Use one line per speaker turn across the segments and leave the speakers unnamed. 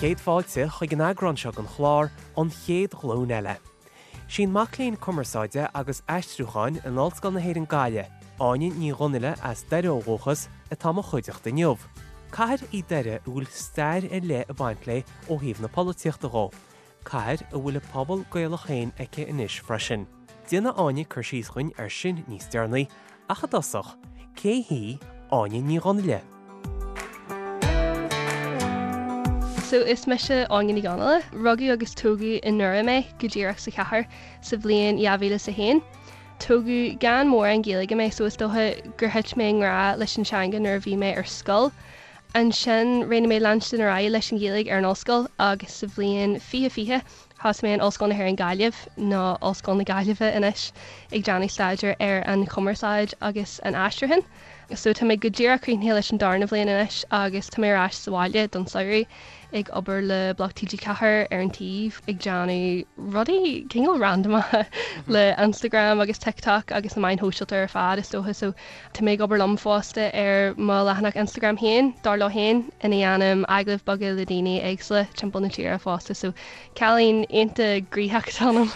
Céad fáilte chuig an eagrán seo den chlár An Chéad Ghlúin Eile. Sí an mac léinn cumarsáide agus aistriúcháin in Ollscoil na hÉireann Gaillimh, Áine Ní Dhonnaile as Doire ó dhúchas, atá i mo chuideachta inniu. Cathair í Doire a bhfuil stair ar leith ag baint léi ó thaobh na polaitíochta dhó, cathair a bhfuil a pobal Gaelach féin aici anois freisin. Déanfaidh Áine cur síos dhuinn air sin níos deireanaí, ach i dtosach, cé hí Áine Ní Dhonnaile?
So, is mise Áine Ní Dhonnaile. Rugadh agus tógadh i nDoire mé, go díreach sa chathair, sa bhliain 2001. Tógadh gan mórán Gaeilge mé so is dócha gur thit mé i ngrá leis an teanga nuair a bhí mé ar scoil. Ansin, roghnaigh mé leanstan ar aghaidh leis an Ghaeilge ar an ollscoil agus sa bhliain 2020 thosaigh mé in Ollscoil na hÉireann Gaillimh, nó Ollscoil na Gaillimhe anois, ag déanamh staidéir ar an chumarsáid agus an aistriúchán. So tá mé go díreach críochnaithe leis an darna bhliain anois agus tá mé ar ais sa bhaile don samhradh ag obair le Bloc TG4 ar an taobh ag déanamh rudaí cineál randamacha le Instagram agus TikTok agus na meáin shóisialta ar fad is dócha so tá mé ag obair liom fosta ar mo leathanach Instagram féin, Dar Leo Féin, ina dhéanaim agallaimh beaga le daoine éagsúla timpeall na tíre fosta so cailín iontach gnoitheach atá ionam.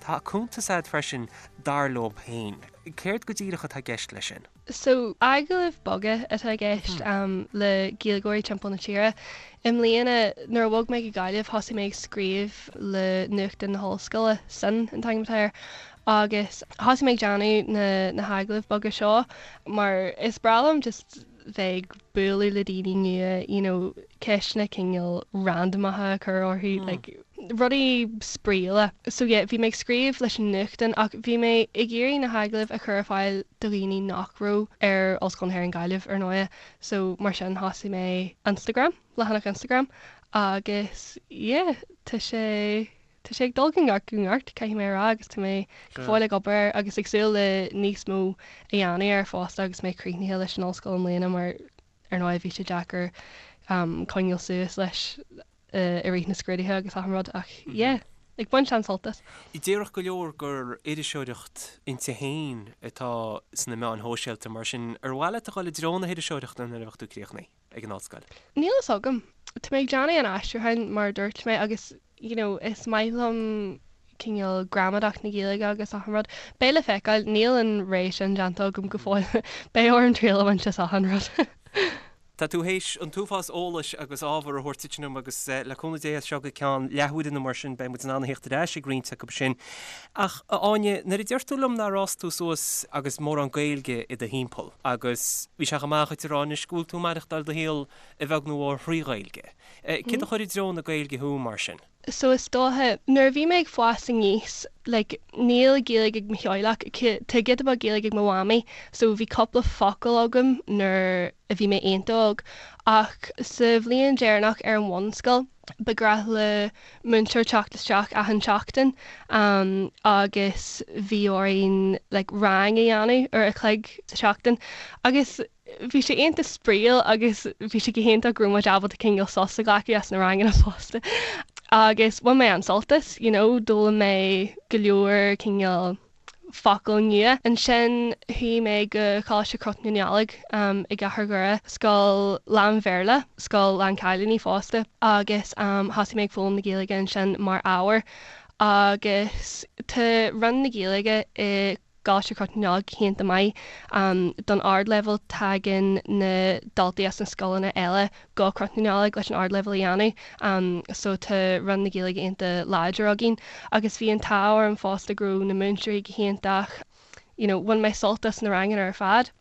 Tá cuntas agat freisin, Dar Leo Féin. Céard go díreach atá i gceist leis sin?
So, agallaimh beaga atá i gceist le Gaeilgeoirí timpeall na tíre. I mbliana, nuair a bhog mé go Gaillimh, thosaigh mé ag scríobh le nuachtán na hollscoile, Sin an t-ainm atá air, agus thosaigh mé ag déanamh na na hagallaimh beaga seo mar is breá liom just bheith ag bualadh le daoine nua, you know, ceisteanna cineál randamacha a chur orthu, like, rudaí spraíúla. So yeah, bhí mé ag scríobh leis an nuachtán ach bhí mé ag iarraidh na hagallaimh a chur ar fáil do dhaoine nach raibh ar Ollscoil na hÉireann Gaillimh, ar ndóighe. So mar sin thosaigh mé Instagram, leathanach Instagram agus yeah, tá sé, tá sé ag dul go neart go neart, caithfidh mé a rá agus tá mé go fóill ag obair air agus ag súil le níos mó a dhéanamh air fosta agus mé críochnaithe leis an ollscoil i mbliana mar ar ndóigh bhí sé deacair coinneáil suas leis i rith na scrúduithe agus achan rud ach yeah, ag baint an-sult as.
Déarfadh go leor gur iriseoireacht inti féin atá sna meáin shóisialta, mar sin ar mhaith leat a dhul i dtreo na hiriseoireachta nuair a bheadh tú críochnaithe ag an ollscoil?
Níl fhios agam. Tá mé ag déanamh an aistriúcháin mar a dúirt mé agus you know is maith liom cineál gramadach na Gaeilge agus achan rud. Beidh le feiceáil, níl an rogha sin déanta agam go fóill. Beidh orm triail a bhaint as achan rud.
Tá tú théis an t-uafás eolais agus ábhar a thabhairt duit inniu agus le cúnamh Dé as seo go ceann leathuaire nó mar sin beidh muid in ann a thíocht ar ais ag roinnt acu sin. Ach, a Áine, nuair a deir tú liom nár fhás tú suas agus mórán Gaeilge i do thimpeall agus bhí sé chomh maith dhuit a rá anois go bhfuil tú ag maireachtáil do shaol a bheag nó a mhór thrí Ghaeilge. Céard a chuir i dtreo na Gaeilge thú mar sin?
So is dócha, nuair a bhí mé ag fás aníos, like, níl Gaeilge ag mo theaghlach, tá giota beag Gaeilge ag mo mhamaí, so bhí cúpla focal agam nuair a bhí mé iontach óg. Ach sa bhliain deireanach ar an bhunscoil, ba ghnách le múinteoir teacht isteach achan tseachtain agus bhí orainn like rang a dhéanamh uair a chloig sa tseachtain agus Bhí sé iontach spraíúil agus bhí sé go hiontach go raibh muid ábalta cineál sos a ghlacadh as na ranganna fosta. Agus bhain mé an-sult as, you know, d'fhoghlaim mé go leor cineál focail nua. Ansin chuaigh mé go Coláiste Chnoc na Nollag i gCathair Dhoire, scoil lán-Bhéarla, scoil lán-chailíní fosta, agus thosaigh mé ag foghlaim na Gaeilge ansin mar ábhar. Agus tá Roinn na Gaeilge i gColáiste Chnoc na Nollag go hiontach maith don ardleibhéal. Tagann na daltaí as na scoileanna eile go Cnoc na Nollag leis an ardleibhéal a dhéanamh so tá Roinn na Gaeilge iontach láidir againn agus bhí an t-ádh orm fosta go raibh na múinteoirí go hiontach, you know bhain mé sult as na ranganna ar fad.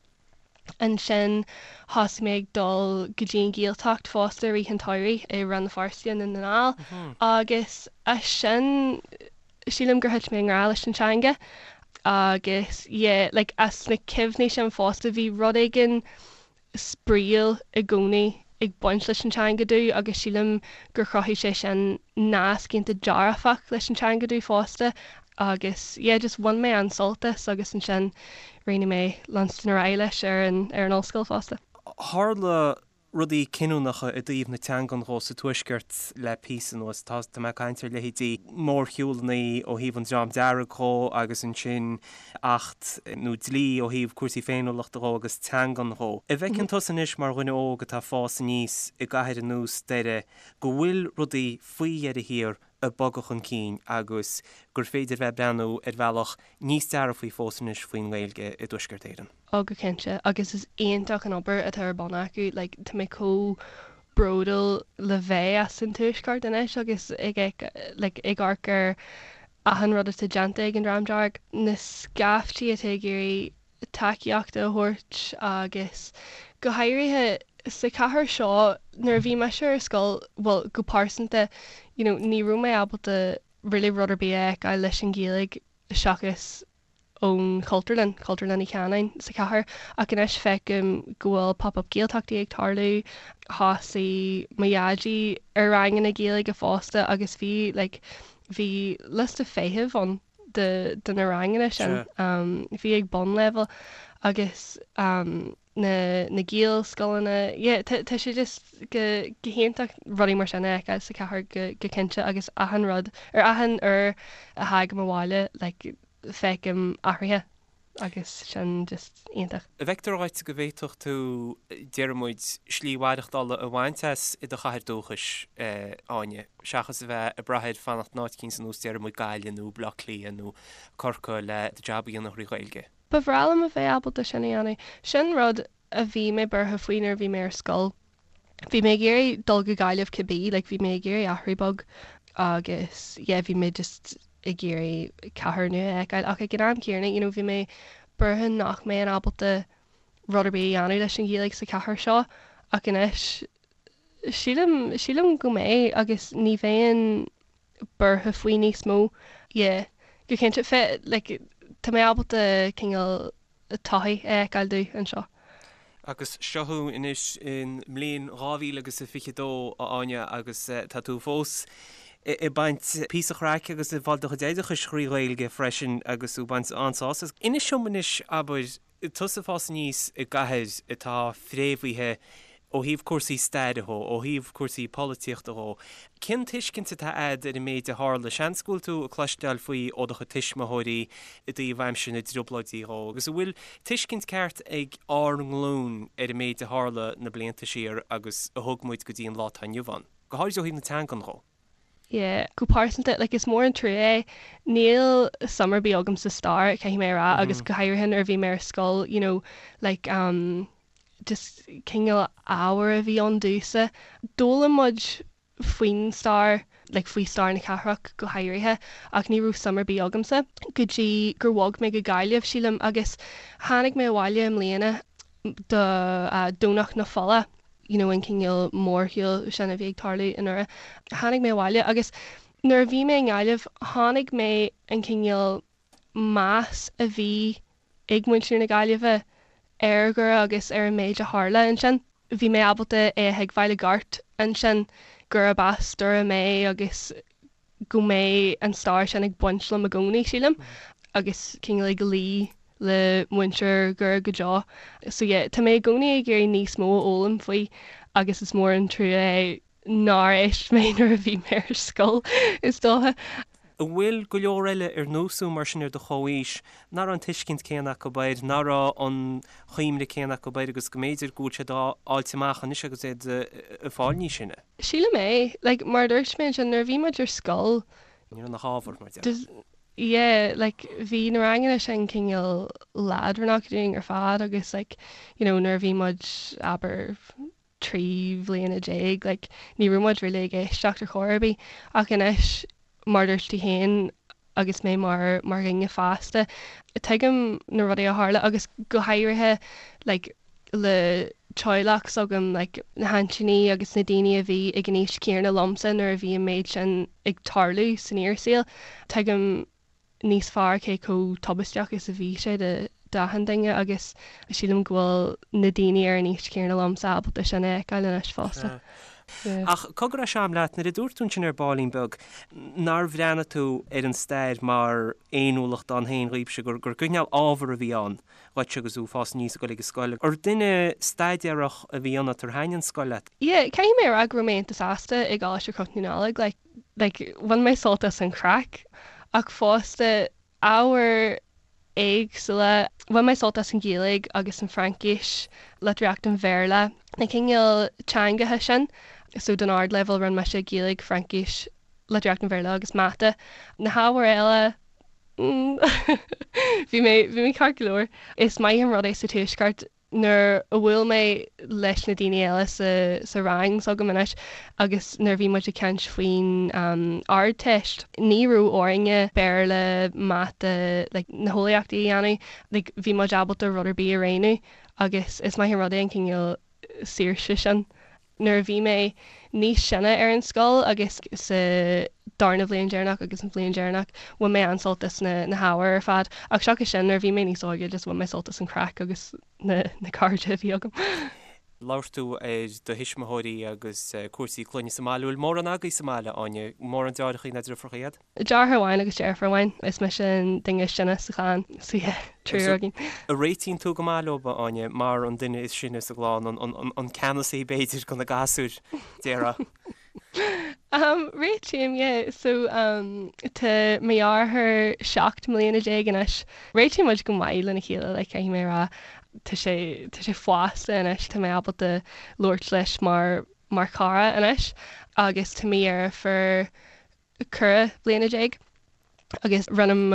Ansin thosaigh mé ag dul go dtí an Ghaeltacht fosta i rith an tsamhraidh i Rann na Feirste i nDún na nGall agus as sin sílim gur thit mé i ngrá leis an teanga agus yeah like as na cuimhní sin fosta bhí rud éigin spraíúil i gcónaí ag baint leis an teanga domh agus sílim gur chruthaigh sé sin nasc iontach dearfach leis an teanga domh fosta agus yeah just bhain mé an-sult as agus ansin roghnaigh mé leanstan ar aghaidh leis ar an ar an ollscoil fosta.
Tharla. rudaí cinniúnacha i dtaobh na teangan dhó sa Tuaisceart le píosa anuas. Tá mé ag caint ar leithéidí mórshiúlanna ó thaobh an Dream Dearg dhó agus ansin acht nó dlí ó thaobh cúrsaí féiniúlachta dhó agus teangan dhó. An bhfeiceann tusa anois mar dhuine óg atá ag fás aníos i gcathair ar nós Doire go bhfuil rudaí faoi dheireadh thiar ag bogadh chun cinn agus gur féidir bheith ag breathnú ar bhealach níos dearfaí fós anois faoin nGaeilge i dTuaisceart Éireann.
Oh go cinnte, agus is iontach an obair atá ar bun acu, like tá mé chomh bródúil le bheith as an Tuaisceart anois agus ag like ag amharc ar achan rud atá déanta ag an Dream Dearg, na scaiftí atá ag iarraidh tacaíocht a thabhairt agus go háirithe sa chathair seo nuair a bhí mise ar scoil, bhuel go pearsanta you know ní raibh mé ábalta really rud ar bith a fheiceáil leis an Ghaeilge seachas ón Chultúrlann, Cultúrlann Uí Chanáin sa chathair ach anois feicim go bhfuil pop up Gaeltachtaí ag tarlú, thosaigh mo dhaidí ar ranganna Gaeilge fosta agus bhí like bhí liosta feithimh ann de de na ranganna sin. Bhí ag bunleibhéal agus na na Gaelscoileanna, yeah tá tá sé just go go hiontach rudaí mar sin a fheiceáil sa chathair go go cinnte agus achan rud ar achan uair a thagaim abhaile like feicim athruithe agus sin just iontach.
An bhfeictear dhuit go bhféadfadh tú, déarfaidh muid, slí mhaireachtála a bhaint as i do chathair dúchais, Áine, seachas a bheith ag brath ar fanacht in áit eicínt ar nós, déarfaidh muid, Gaillimh nó Baile Átha Cliath nó Corcaigh le do jab a dhéanamh thrí Ghaeilge?
Ba bhreá liom a bheith ábalta sin a dhéanamh. Sin rud a bhí mé buartha faoi nuair a bhí mé ar scoil. Bhí mé ag iarraidh dul go Gaillimh cibé, like bhí mé ag iarraidh athrú beag agus yeah bhí mé just ag iarraidh cathair nua a fheiceáil ach ag an am céanna you know bhí mé buartha nach mbeinn ábalta rud ar bith a dhéanamh leis an Ghaeilge sa chathair seo ach anois sílim, sílim go mbeidh agus ní bheinn buartha faoi níos mó. Yeah go cinnte fe like tá mé ábalta cineál todhchaí a fheiceáil domh anseo.
Agus seo thú anois i mbliain 2022, a Áine, agus tá tú fós ag baint píosa craic agus ag fáil do chuid oideachais thrí Ghaeilge freisin agus tú ag baint an-sásamh as. Inis dom anois, abair, tusa ag fás aníos i gcathair atá fréamhaithe ó thaobh cúrsaí staire dhó, ó thaobh cúrsaí polaitíochta dhó, cén tuiscint atá a'd ar an méid a tharla? Seans go bhfuil tú ag cloisteáil faoi ó do chuid tuismitheoirí i dtaobh aimsir na dTrioblóidí dhó, agus an bhfuil tuiscint ceart ag ár nglúin ar an méid a tharla na blianta siar agus a thug muid go dtí an lá atá inniu ann, go háirid ó thaobh na teangan dhó?
Yeah, go pearsanta, like is mór an trua é, níl suim ar bith agam sa stair, caithfidh mé a rá, agus go háirithe nuair a bhí mé ar scoil, you know, like um, just cineál ábhar a bhí ann domhsa. D'fhoghlaim muid faoin stair, like faoi stair na cathrach go háirithe, ach ní raibh suim ar bith agamsa go dtí gur bhog mé go Gaillimh, sílim, agus tháinig mé abhaile i mbliana do Domhnach na Fola, you know an cineál mórshiúl sin a bhí ag tarlú i nDoire. Tháinig mé abhaile agus nuair a bhí mé i nGaillimh chonaic mé an cineál meas a bhí ag muintir na Gaillimhe ar Dhoire agus ar an méid a tharla ansin. Bhí mé ábalta é a thuigbheáil i gceart ansin gurb as Doire mé agus go mbeidh an stair sin ag baint liom i gcónaí, sílim, agus cineál ag luí le muintir Dhoire go deo. So yeah, tá mé i gcónaí ag iarraidh níos mó a fhoghlaim faoi agus is mór an trua é nár éist mé nuair a bhí mé ar scoil, is dócha.
An bhfuil go leor eile ar nós thú mar sin ar do chomhaois nach raibh an tuiscint céanna acu air, nach raibh an chuimhne céanna acu air agus go mb'fhéidir go bhfuil siad á fháilt amach anois agus iad ag fáil níos sine?
Sílim é. Like, mar a dúirt mé ansin, nuair a bhí muid ar scoil,
Ní raibh nach ábhar, mar déarfá.
yeah, like, bhí na ranganna sin cineál leadránach dúinn ar fad agus like, you know, nuair a bhí muid, abair, 13 bhliana, like, ní raibh muid really ag éisteacht ar chor ar bith. Ach anois, mar a dúirt tú féin, agus mé mar mar dhuine fásta, tuigim na rudaí a tharla agus go háirithe like le teaghlach s'agam, like na haintíní agus na daoine a bhí ag an aois chéanna liomsa nuair a bhí an méid sin ag tarlú san fhíorshaol, tuigim níos fearr cé chomh tubaisteach is a bhí sé d'achan duine agus sílim go bhfuil na daoine ar an aois chéanna liomsa ábalta sin a fheiceáil anois fosta.
Ach cogar a Sham leat, nuair a dúirt tú ansin ar baillín beag nár bhreathnaigh tú ar an stair mar fhéiniúlacht ann féin dhaoibhse, gur gur cineál ábhar a bhí ann dhuit agus tú ag fás aníos ag dul ag an scoil. Ar duine staidéarach a bhí ionat, ar thaitin an scoil leat?
Yeah, caithfidh mé a rá go raibh mé iontach sásta i gColáiste Chnoc na Nollag, like, like, bhain mé sult as an chraic ach fosta ábhair éagsúla. Bhain mé sult as an Ghaeilge agus an Fraincis, litríocht an Bhéarla, na cineál teangacha sin. So don ardleibhéal rinne mise Gaeilge, Fraincis, litríocht an Bhéarla agus Mata. Na hábhair eile, mm bhí mé, bhí mé ceart go leor. Is maith an rud é sa Tuaisceart nuair a bhuail mé leis na daoine eile sa sa rang s'agam anois agus nuair a bhí muid ag caint faoin Ardteist, ní raibh orainne Béarla, Mata, like na heolaíochtaí a dhéanamh, like bhí muid ábalta rud ar bith a roghnú agus is maith an rud é an cineál saoirse sin. Nuair a bhí mé níos sine ar an scoil agus sa darna bhliain deireanach agus an bhliain deireanach, bhain mé an-sult as na na hábhair ar fad. Ach seachas sin, nuair a bhí mé níos óige, just bhain mé sult as an chraic agus na na cairde a bhí agam.
Labhair tú ar do thuismitheoirí agus cúrsaí clainne sa mbaile. Bhfuil mórán agaibh sa mbaile, Áine? Mórán deartháireacha nó deirfiúracha
iad? Deartháir amháin agus deirfiúr amháin. Is mise an duine is sine sa chlann, so yeah, triúr againn.
An réitíonn tú go maith leo, a Áine, mar an duine is sine sa gclann, an ceannasaí b'fhéidir de na gasúir, déarfá?
Um, réitím, yeah. So, um, tá mo dheartháir 17 mbliana anois. Réitíonn muid go maith lena chéile, like, caithfidh mé a rá. Tá sé, tá sé fásta anois, tá mé ábalta labhairt leis mar, mar chara anois. Agus tá mo dheirfiúr 14 bliana agus roinnim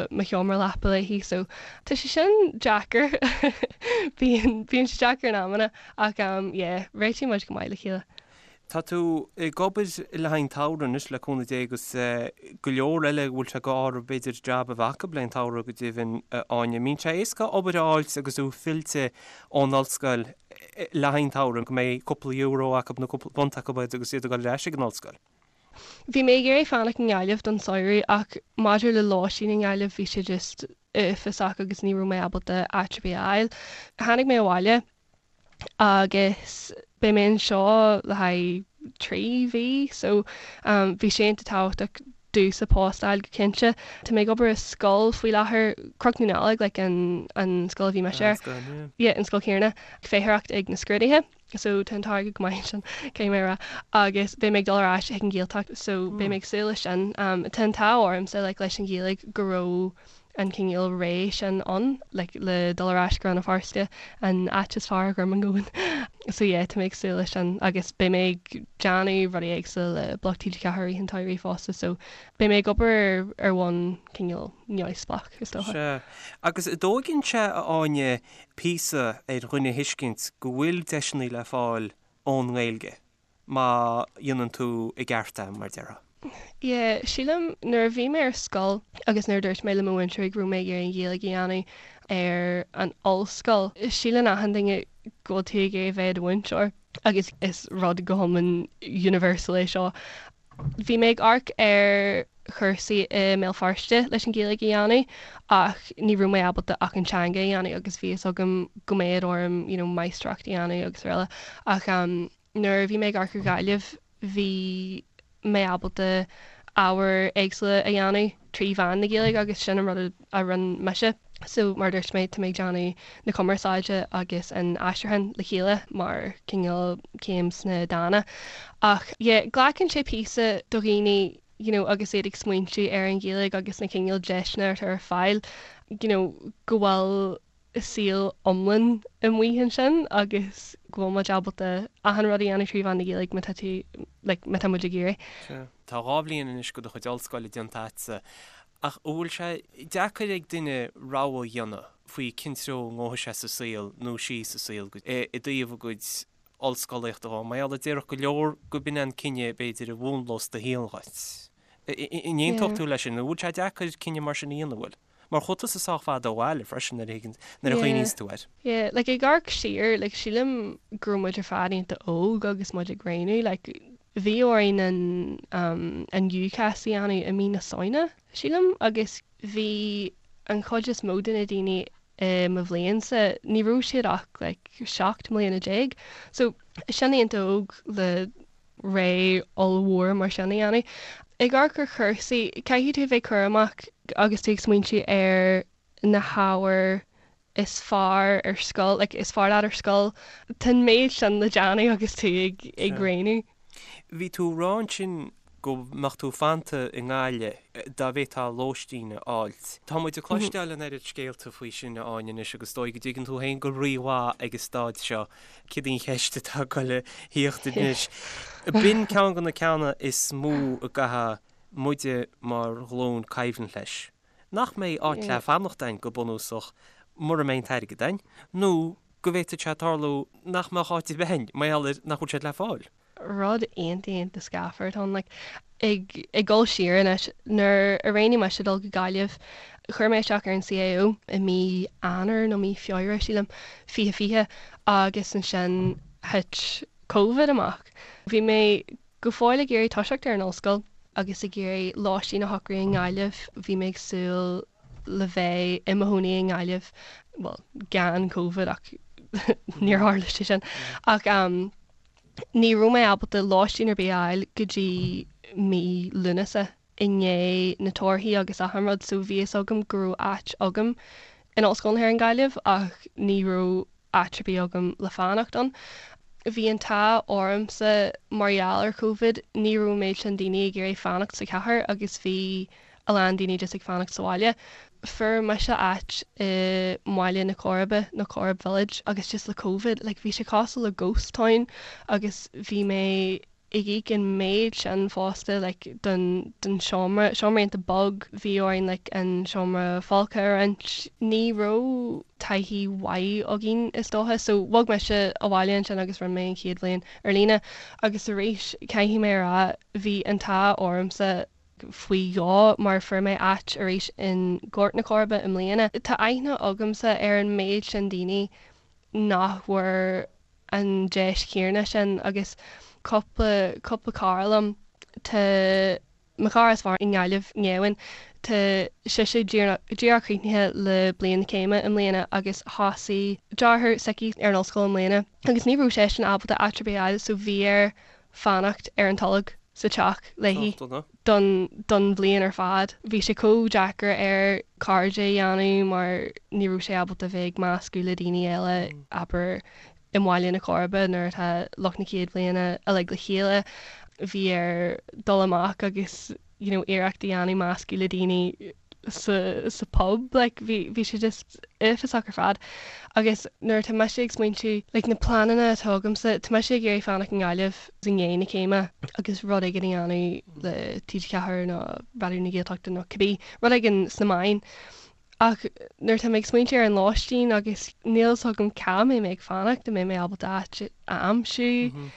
mo sheomra leapa léi so tá sé sin deacair bíonn bíonn sé deacair in amanna ach um yeah réitíonn muid go maith le chéile.
Tá tú ag obair le haghaidh an tsamhraidh anois le cúnamh Dé agus go leor eile a bhfuil sé go orthu b'fhéidir jab a bheith acu le haghaidh an tsamhraidh go deimhin a Áine. An mbíonn sé éasca obair a fháilt agus tú fillte ón ollscoil le haghaidh an tsamhraidh go mbeidh cúpla euro acu nó cúpla punt acu agus iad ag dul ar ais ag an ollscoil?
Bhí mé ag iarraidh fanacht i nGaillimh don samhradh ach maidir le lóistín i nGaillimh bhí sé just uafásach agus ní raibh mé ábalta áit ar bith a fháil. Tháinig mé abhaile agus beidh mé anseo le haghaidh 3 mhí so bhí sé iontach tábhachtach domhsa post a fháil go cinnte. Tá mé ag obair i scoil faoi láthair, Cnoc na Nollag like an an scoil a bhí mise air. An scoil, yeah. Yeah, an scoil chéanna. Feitheoireacht ag na scrúduithe. so tá an t-airgead go maith ansin, caithfidh mé a rá, agus beidh mé ag dul ar ais chuig an Ghaeltacht so beidh mé ag súil leis sin. Tá an t-ádh ormsa like leis an Ghaeilge go raibh an cineál ré sin ann like le dul ar ais go Rann na Feirste, an áit is fearr ar an domhan. So yeah, tá mé ag súil leis sin agus beidh mé ag déanamh rudaí éagsúla le Bloc TG4 i rith an tsamhraidh fosta so beidh mé ag obair ar bhonn cineál neamhspleách is dócha.
Sea. Agus an dtóigeann sé, a Áine, píosa ar dhuine a thuiscint go bhfuil deiseanna le fáil ón nGaeilge má dhéanann tú i gceart é, mar a déarfá.
Yeah, sílim, nuair a bhí mé ar scoil agus nuair a dúirt mé le mo mhúinteoirí go raibh mé ag iarraidh an Ghaeilge a dhéanamh ar an ollscoil, síleann achan duine go bhfuil tú ag iarraidh bheith i do mhúinteoir agus is rud go hiomlán universal é seo. Bhí mé ag amharc ar chúrsaí i mBéal Feirste leis an Ghaeilge a dhéanamh ach ní raibh mé ábalta ach an teanga a dhéanamh agus bhí fhios agam go mbeadh orm you know máistreacht a dhéanamh agus araile ach nuair a bhí mé ag amharc ar Ghaillimh bhí mé ábalta ábhair éagsúla a dhéanamh trí mheán na Gaeilge agus sin an rud a rinne mise. So mar a dúirt mé, tá mé ag déanamh na cumarsáide agus an aistriúcháin le chéile mar cineál céim sna dána. Ach yeah, glacann sé píosa do dhaoine you know agus iad ag smaointiú ar an Ghaeilge agus na cineál deiseanna atá ar fáil you know go bhfuil saol iomlán amuigh ansin agus go bhfuil muid ábalta achan rud a dhéanamh trí mheán na Gaeilge má tá tú, like, má tá muid ag iarraidh.
Sea. Tá 2 bhliain anois de do chuid ollscoile déanta agatsa, ach an bhfuil sé deacair ag duine rogha a dhéanamh faoi cén treo a ngabhfaidh sé sa saol nó sí sa saol i dtaobh a gcuid ollscolaíochta dhó? Mar gheall a déarfadh go leor go b'in an cinneadh b'fhéidir a mhúnlós do shaol dhuit. An aontódh tú leis sin? An bhfuil sé deacair cinneadh mar sin a dhéanamh, an bhfuil? Mar chuaigh tusa sách fada ó bhaile freisin nuair a thuigeann, nuair a chuimhníonns tú air.
Yeah, like ag amharc siar, like sílim go raibh muid ar fad iontach óg agus muid ag roghnú, like bhí orainn an um an UCAS a dhéanamh i mí na Samhna, sílim, agus bhí an chuid is mó de na daoine i mo bhliainsa, ní raibh siad ach like 17 mbliana. So sin iontach óg le. Ré ollmhór mar sin a dhéanamh. Ag amharc ar chúrsaí, caithfidh tú a bheith cúramach agus tú ag smaointiú ar na hábhair is fearr ar scoil, like is fearr leat ar scoil. Tá an méid sin le déanamh agus tú ag ag roghnú.
Bhí tú ag rá ansin go mbeadh tú fanta i nGaillimh dá bhféadfá lóistín a fháilt. Tá muid ag cloisteáil an oiread scéalta faoi sin, a Áine, anois agus is dóigh go dtuigeann tú féin go rímhaith ag an staid seo céard í an cheist atá ag goil a thíocht anois. B'in ceann de na ceanna is mó a gcaithfidh muide mar ghlúin coimhlint leis. Nach mbeidh áit le fanacht a'inn go bunúsach mura mbeidh an t-airgead a'inn, nó go bhféadfadh sé tarlú nach mbeadh áit ar bith a'inn mar gheall ar nach bhfuil siad le fáil.
Rud iontach iontach scáfar atá ann. Like, ag ag dul siar anois, nuair a roghnaigh mise dul go Gaillimh, chuir mé isteach ar an CAO i mí Eanáir nó mí Feabhra, sílim, 2020 agus ansin thit Covid amach. Bhí mé go fóill ag iarraidh toiseacht ar an ollscoil agus ag iarraidh lóistín a shocrú i nGaillimh. Bhí mé ag súil le bheith i mo chónaí i nGaillimh, bhuel, gan Covid ach níor tharla sé sin. Ach ní raibh mé ábalta lóistín ar bith a fháil go dtí mí Lúnasa i ndiaidh na torthaí agus achan rud so bhí fhios agam go raibh áit agam in Ollscoil na hÉireann Gaillimh ach ní raibh áit ar bith agam le fanacht ann. Bhí an t-ádh ormsa mar gheall ar Covid, ní raibh an méid sin daoine ag iarraidh fanacht sa chathair agus bhí a lán daoine just ag fanacht sa bhaile. Fuair mise áit i mBaile na Coiribe nó Corrib Village agus just le Covid like bhí sé cosúil le ghost town agus bhí mé ag íoc an méid sin fosta like don don seomra, seomra iontach beag, bhí orainn like an seomra folctha a roinnt. Ní raibh taithí mhaith againn is dócha so bhog mise abhaile ansin agus rinne mé an chéad bhliain ar líne agus arís caithfidh mé a rá bhí an t-ádh ormsa faoi dhó mar fuair mé áit arís in Gort na Coiribe i mbliana. Tá aithne agamsa ar an méid sin daoine nach bhfuair an deis chéanna sin agus cúpla, cúpla cara liom, tá mo chara is fearr i nGaillimh, Néamhain, tá sise díreach críochnaithe le bliain na céime i mbliana agus thosaigh deartháir s'aici ar an ollscoil i mbliana agus ní raibh seisean ábalta áit ar bith a fháil so bhí air fanacht ar an tolg sa teach léi don don bhliain ar fad. Bhí sé chomh deacair air cairde a dhéanamh mar ní raibh sé ábalta bheith ag meascadh le daoine eile, abair i mBaile na Coiribe nuair atá lucht na chéad bhliana uilig le chéile. Bhí air dul amach agus you know iarracht a dhéanamh meascadh le daoine sa sa pub like bhí bhí sé just uafásach ar fad agus nuair atá mise ag smaointiú like na pleananna atá agamsa tá mise ag iarraidh fanacht i nGaillimh i ndiaidh na céime agus rud éigin a dhéanamh le TG4 nó Raidió na Gaeltachta nó cibé rud éigin sna meáin Ach nuair atá mé ag smaointiú ar an lóistín agus níl fhios agam cá mbeidh mé ag fanacht, an mbeidh mé ábalta áit a aimsiú,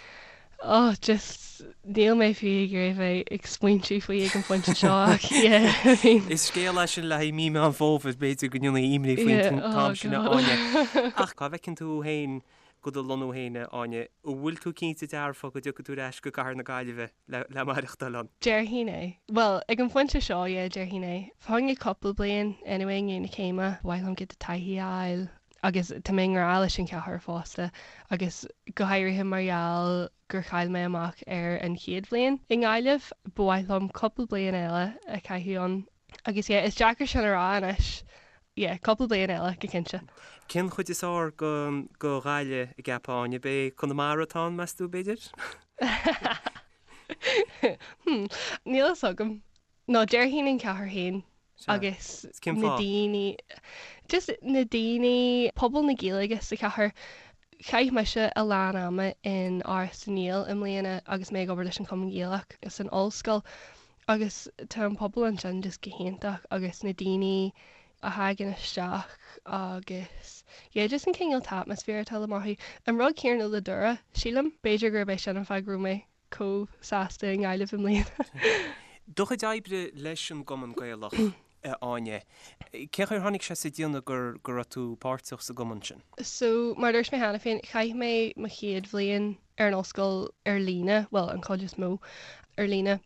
oh just níl mé fiú ag iarraidh bheith ag smaointiú faoi ag an phointe seo ach yeah I
mean. Is scéal é sin le haghaidh mí Meán Fómhair, b'fhéidir go ndéanfaí imní faoin t-am sin a Áine. Ach cá bhfeiceann tú féin do do lonnú féin a Áine? An bhfuil tú cinnte dearfa go dtiocfaidh tú ar ais go cathair na Gaillimhe le maireachtáil ann?
Déarfainn é. Bhuel, ag an phointe seo, yeah, déarfainn é. Fá choinne cúpla bliain, anyway, i ndiaidh na céime, ba mhaith liom giota taithí a fháil agus tá mé i ngrá leis an chathair fosta agus go háirithe mar gheall gur chaill mé amach ar an chéad bhliain i nGaillimh, ba mhaith liom cúpla bliain eile a chaitheamh ann. Agus yeah, is deacair sin a rá anois. Yeah, cúpla bliain eile, go cinnte.
Cén chuid is fearr go Ghaillimh an gceapfá, Áine? B'é Conamara atá ann, meas tú, b'fhéidir?
Hmm, níl fhios agam. No, déarfainn an chathair féin agus na daoine, just na daoine, pobal na Gaeilge sa chathair. Chaith mise a lán ama in Áras na nGael i mbliana agus mé ag obair leis an Chumann Gaelach san ollscoil. Agus tá an pobal ansin just go hiontach agus na daoine a thagann isteach agus yeah just an cineál t-atmaisféar atá le mothú. An rud céanna le Doire, sílim. B'fhéidir gurb é sin an fáth go raibh mé chomh sásta i nGaillimh i mbliana.
Do chuid oibre leis an gCumann Gaelach, a Áine, cén chaoi ar tháinig sé sa déanamh go go raibh tú páirteach sa gcumann sin?
So, mar a dúirt mé cheana féin, chaith mé mo chéad bhliain ar an ollscoil ar líne, bhuel, an chuid is mó ar líne,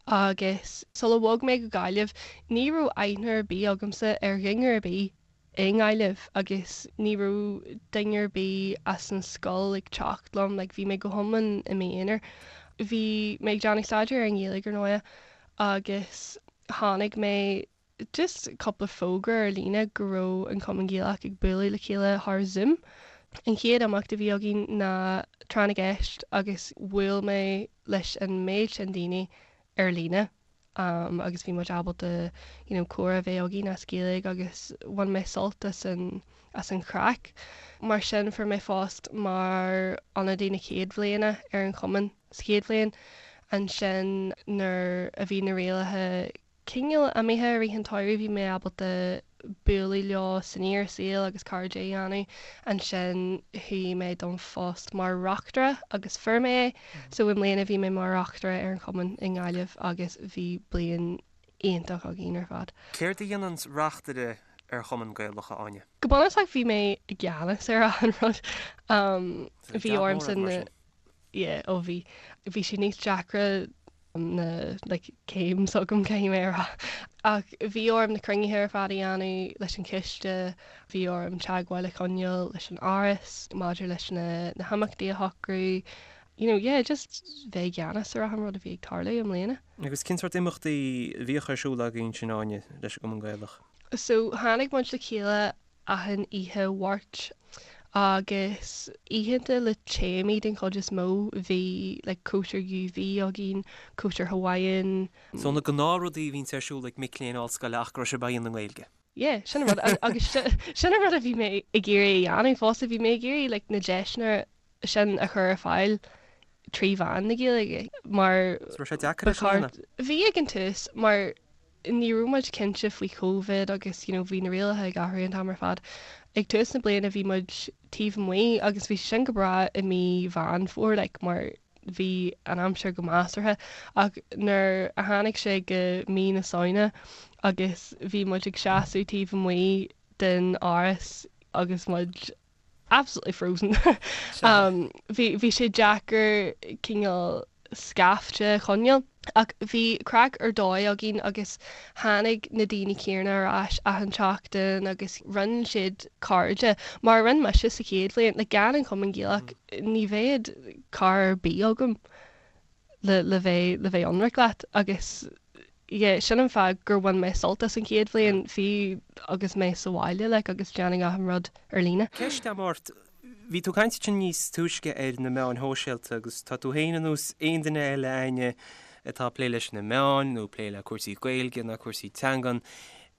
agus sula bhog mé go Gaillimh, ní raibh aithne ar bith agamsa ar dhuine ar bith i nGaillimh agus ní raibh duine ar bith as an scoil ag teacht liom, like bhí mé go hiomlán i m'aonar. Bhí mé ag déanamh staidéar ar an nGaeilge ar ndóigh agus chonaic mé just cúpla fógra ar líne go raibh an Cumann Gaelach ag bualadh le chéile thar Zoom. An chéad imeacht a bhí againn ná Tráth na gCeist agus bhuail mé leis an méid sin daoine ar líne agus bhí muid ábalta you know comhrá a bheith againn as Gaeilge agus bhain mé sult as an as an chraic. Mar sin fuair mé phost mar ionadaí na chéad bhliana ar an chumann sa chéad bhliain. Ansin nuair a bhí na rialacha cineál imithe i rith an tsamhraidh bhí mé ábalta bualadh leo san fhíor saol agus cairde a dhéanamh. Ansin chuaigh mé don phost mar reachtaire agus fuair mé é. So i mbliana bhí mé mar reachtaire ar an chumann i nGaillimh agus bhí bliain iontach againn ar fad.
Céard a dhéanann reachtaire ar chumann Gaelach, a Áine?
Go bunúsach bhí mé i gceannas ar achan rud. Bhí ormsa na. Yeah, ó bhí. Bhí sé níos deacra na like céim s'agam caithfidh mé a rá. Ach bhí orm na cruinnithe ar fad a dhéanamh leis an chiste, bhí orm teagmháil a choinneáil leis an Áras maidir leis na na himeachtaí a shocrú, you know, yeah, just bheith i gceannas ar achan rud a bhí ag tarlú i mbliana.
Agus cén sórt imeachtaí a bhíodh ar siúl agaibh ansin, Áine, leis an gCumann Gaelach?
So tháinig muid le chéile achan oíche Mháirt agus oícheanta le téamaí den chuid is mó. Bhí like cóisir UV againn, cóisir Hawaiian.
So na gnáthrudaí a bhíonns ar siúl ag mic léinn ollscoile ach go raibh sibh á dhéanamh i nGaeilge.
Yeah, sin an rud agus sin an rud a bhí mé ag iarraidh a dhéanamh fosta, bhí mé ag iarraidh like na deiseanna sin a chur ar fáil trí mheán na Gaeilge mar
So raibh sé deacair é sin a dhéanamh?
Bhí ag an tús mar ní raibh muid cinnte faoi Covid agus you know bhí na rialacha ag athrú an t-am ar fad. Ag tús na bliana bhí muid taobh amuigh agus bhí sé sin go breá i mí Mheán Fómhair like mar bhí an aimsir go measartha ach nuair a tháinig sé go mí na Samhna agus bhí muid ag seasamh taobh amuigh den áras agus muid absolutely frozen. Bhí bhí sé deacair cineál scaifte a choinneáil. Ach bhí craic ar dóigh againn agus tháinig na daoine céanna ar ais achan tseachtain agus rinne siad cairde, mar a rinne mise sa chéad bhliain. Like gan an Cumann Gaelach ní bheadh cara ar bith agam. le le bheith le bheith ionraic leat agus yeah sin an fáth gur bhain mé sult as an chéad bhliain fiú agus mé sa bhaile like agus déanamh achan rud ar líne.
Ceist agam ort, bhí tú ag caint ansin níos túisce ar na meáin shóisialta agus tá tú féin ar nós aon duine eile Áine atá ag plé leis na meáin nó ag plé le cúrsaí Gaeilge nó cúrsaí teangan.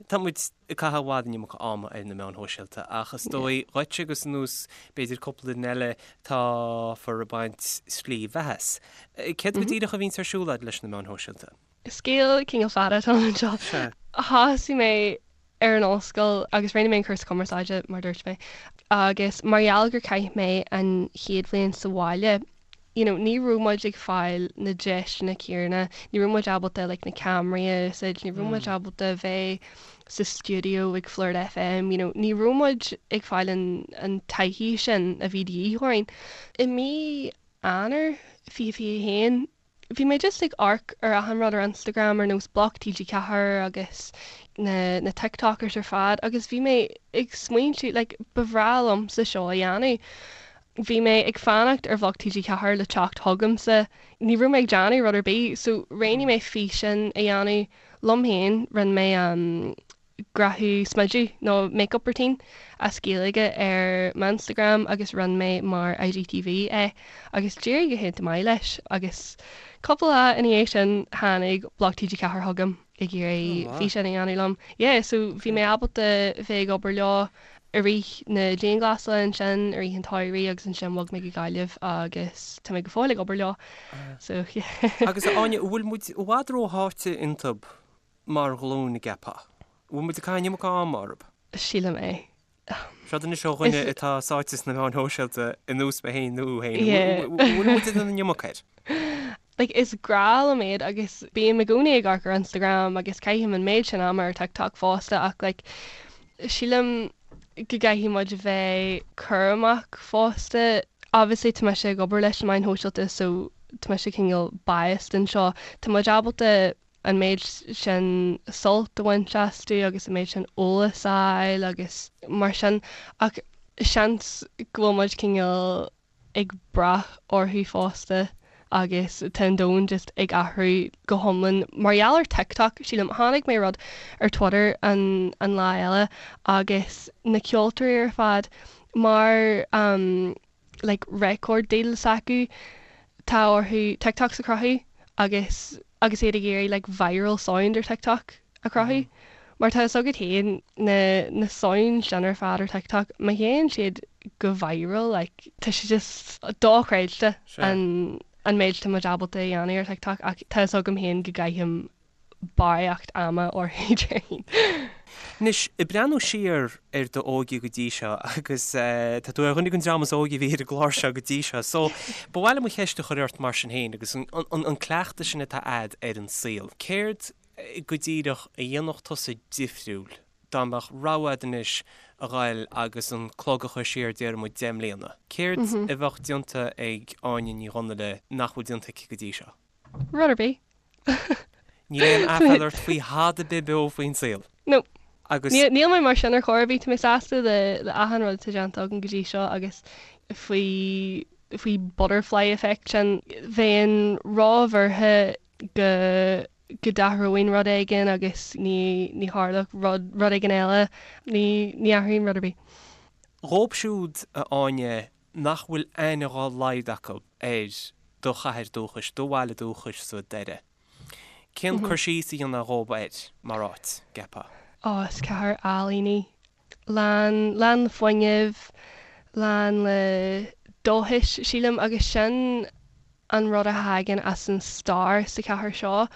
Tá muid ag caitheamh i bhfad an iomarca ama ar na meáin shóisialta ach is dóigh dhuit agus ar nós b'fhéidir cúpla duine eile táthar ag baint slí bheatha as. Céard go díreach a bhíonns ar siúl agat leis na meáin shóisialta?
Scéal cineál fada atá anseo. Thosaigh mé ar an ollscoil agus rinne mé an cúrsa cumarsáide mar dúirt mé agus mar gheall gur chaith mé an chéad bhliain sa bhaile you know ní raibh muid ag fáil na deiseanna céanna, ní raibh muid ábalta like na ceamaraí a úsáid, ní raibh muid ábalta bheith sa stiúideo ag Flirt FM, you know ní raibh muid ag fáil an an taithí sin a bhí de dhíth orainn. I mí Eanáir 2021 bhí mé just ag amharc ar achan rud ar Instagram ar nós Bloc TG4 agus na na TikTokers ar fad agus bhí mé ag smaointiú like ba bhreá liomsa seo a dhéanamh. Bhí mé ag fanacht ar Bhloc TG4 le teacht chugamsa. Ní raibh mé ag déanamh rud ar bith so roghnaigh mé físeán a dhéanamh liom féin. Rinne mé grafadh smideadh nó make-up routine as Gaeilge ar m'Instagram agus rinne mé mar IGTV é agus d'éirigh go hiontach maith leis agus cúpla lá ina dhiaidh sin tháinig Bloc TG4 chugam. ag iarraidh físeán a dhéanamh liom. Yeah, so bhí mé ábalta bheith ag obair leo i rith na dianghlasála ansin, i rith an tsamhraidh agus ansin bhog mé go Gaillimh agus tá mé go fóill ag obair leo. So yeah.
Agus a Áine, an bhfuil muid i bhfad rósháite iontu mar ghlúin, an gceapfá? An bhfuil muid ag caitheamh an iomarca ama orthu?
Sílim é.
Seod anois ó dhuine atá sáite sna meáin shóisialta ar nós mé féin nó thú féin. An bhfuil muid ag déanamh an iomarca air?
Like is grá liom iad agus bím i gcónaí ag amharc ar Instagram agus caithim an méid sin ama ar TikTok fosta ach like sílim go gcaithfidh muid a bheith cúramach fosta. Obviously tá mise ag obair leis na meáin shóisialta so tá mise cineál biased anseo. Tá muid ábalta an méid sin sult a bhaint astu agus an méid sin eolas a fháil agus mar sin ach seans go bhfuil muid cineál ag brath orthu fosta. agus tá an domhan just ag athrú go hiomlán mar gheall ar TikTok, sílim. Chonaic mé rud ar Twitter an an lá eile agus na ceoltóirí ar fad mar um like record deal s'acu tá orthu TikToks a chruthú agus agus iad ag iarraidh like viral sound ar TikTok a chruthú. Mar tá fhios agat féin na na sounds sin ar fad ar TikTok má théann siad go viral like tá sé just dochreidte an an méid atá muid ábalta a dhéanamh ar TikTok ach tá fhios agam féin go gcaithim barraíocht ama orthu déarfainn.
Anois, ag breathnú siar ar d'óige go dtí seo, agus tá tú ar dhuine den dream is óige a bhí ar an gclár seo go dtí seo, so ba mhaith liom an cheist a chur ort mar sin féin, agus an cleachtadh sin atá a'd ar an saol, céard go díreach a dhéanfadh tusa difriúil dá mbeadh rogha a'd anois a ghoil agus an clog a chur siar déarfaidh muid 10 mbliana? Céard a bheadh déanta ag Áine Ní Dhonnaile nach bhfuil déanta aici go dtí seo?
Rud ar bith.
Níl aon aiféala ort faoi thada ar bith beo faoin saol.
No. Agus. Níl mé mar sin ar chor ar bith. Tá mé sásta le le achan rud atá déanta agam go dtí seo agus faoi faoi butterfly effect sin. Bheinn róbhuartha go go d'athróinn rud éigin agus ní ní tharlódh rud rud éigin eile. Ní ní athraím rud ar bith.
Dhóibh siúd, a Áine, nach bhfuil aithne dhá laghad acu ar do chathair dúchais, do bhaile dúchais sa Doire. Cén cur síos a dhéanfá dhóibh air mar áit, gceapfá?
Ó, is cathair álainn í. Lán, lán le fuinneamh, lán le dóchas, sílim, agus sin an rud a thagann as an stair sa chathair seo.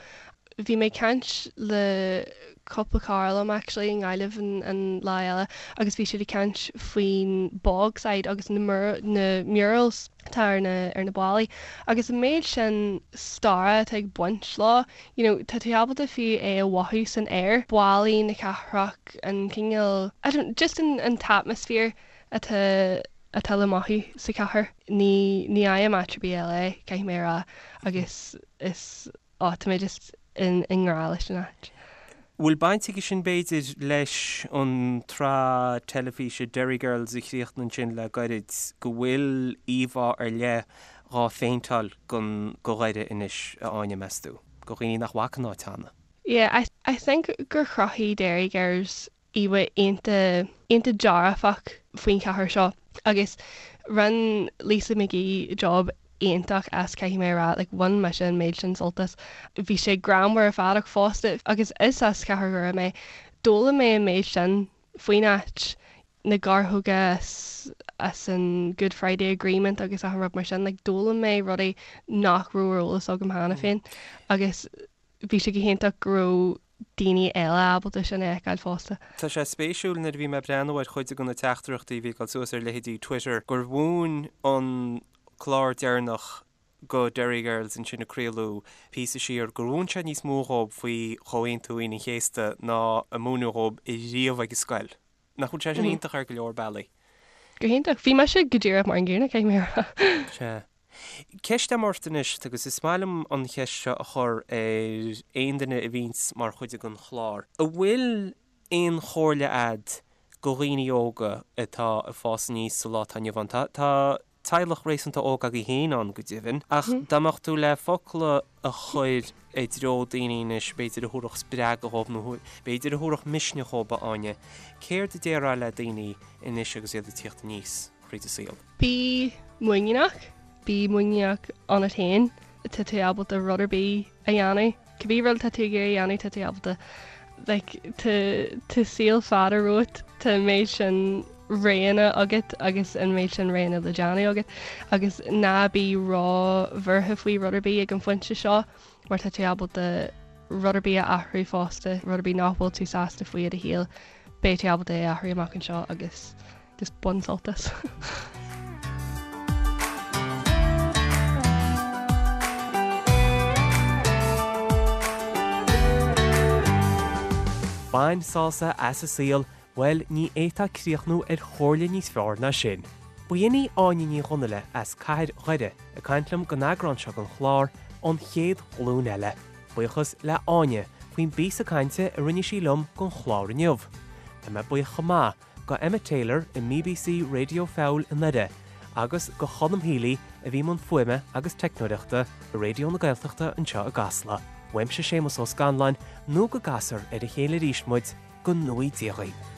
Bhí mé ag caint le cúpla cara liom actually i nGaillimh an an lá eile agus bhí siad ag caint faoin Bogside agus na na murals atá ar na ar na ballaí agus an méid sin staire atá ag baint leo you know tá tú ábalta fiú é a mhothú san aer, ballaí na cathrach, an cineál I don't just an an t-atmosphere atá atá le mothú sa chathair. Ní ní fhaighim áit ar bith eile é, caithfidh mé a rá, agus is á tá mé just in i ngrá leis an áit.
Bhfuil baint aige sin b'fhéidir leis an tsraith teilifíse Derry Girls a chríochnaigh ansin le gairid, go bhfuil íomhá ar leith dhá phéinteáil gon go Dhoire anois, a Áine, meas tú? Go dhaoine nach bhfaca an áit cheana.
Yeah, I I think gur chruthaigh Derry Girls íomhá iontach iontach dearfach faoin chathair seo agus rinne Lisa McGee job iontach as caithfidh mé a rá like bhain mise an méid sin sult as. Bhí sé greannmhar ar fad ach fosta agus is as cathair Dhoire mé d'fhoghlaim mé an méid sin faoin áit, na gearrthóga as as an Good Friday Agreement agus achan rud mar sin like d'fhoghlaim mé rudaí nach raibh ar eolas agam cheana féin agus bhí sé go hiontach go raibh daoine eile ábalta sin a fheiceáil fosta.
Tá sé spéisiúil nuair a bhí mé ag breathnú ar chuid de na teachtaireachtaí a bhí ag dul suas ar leithéidí Twitter gur mhúin an clár deireanach go Derry Girls ansin a craoladh píosa siar, gur mhúin sé níos mó dhóibh faoi Chomhaontú Aoine an Chéasta ná a múineadh dhóibh riamh ag an scoil. Nach bhfuil sé sin iontach ar go leor bealaí?
Go hiontach. Bhí mise go díreach mar an gcéanna, caithfidh mé a rá.
Sea. Ceist agam ort anois, agus is maith liom an cheist seo a chur ar aon duine a bhíonns mar chuid den chlár. An bhfuil aon chomhairle a'd go dhaoine óga atá ag fás aníos sa lá atá inniu ann? Tá teaghlach réasúnta óg agaibh féin ann go deimhin, ach dá mbeadh tú le focal a chur i dtreo daoine anois, b'fhéidir a thabharfadh spreagadh dhóibh nó b'fhéidir a thabharfadh misneach dhóibh, a Áine, céard a déarfá le daoine anois agus iad ag tíocht aníos thríd an saol?
Bí muiníneach, bí muiníneach ionat féin, tá tú ábalta rud ar bith a dhéanamh, cibé rud atá tú ag iarraidh a dhéanamh tá tú ábalta. Like tá tá saol fada romhat, tá an méid sin roghanna agat agus an méid sin roghanna le déanamh agat agus ná bí ró-bhuartha faoi rud ar bith ag an phointe seo mar tá tú ábalta rud ar bith a athrú fosta, rud ar bith nach bhfuil tú sásta faoi i do shaol, beidh tú ábalta é a athrú amach anseo agus Just bain sult as.
Bain sásamh as an saol, bhuel, ní fhéadfá críochnú ar chomhairle níos fearr ná sin. B'in í Áine Ní Dhonnaile as cathair Dhoire ag caint liom don eagrán seo den chlár An Chéad Ghlúin Eile. Buíochas le Áine faoin bpíosa cainte a rinne sí liom don chlár inniu. Tá mé buíoch chomh maith go Emma Taylor i mBBC Radio Feabhail i nDoire agus go Colm Healy a bhí i mbun fuaime agus teicneoireachta i Raidió na Gaeltachta anseo i gCasla. Uaimse Séamus Ó Scanláin, nó go gcasfar ar a chéile arís muid, go ngnóthaí Dia dhaoibh.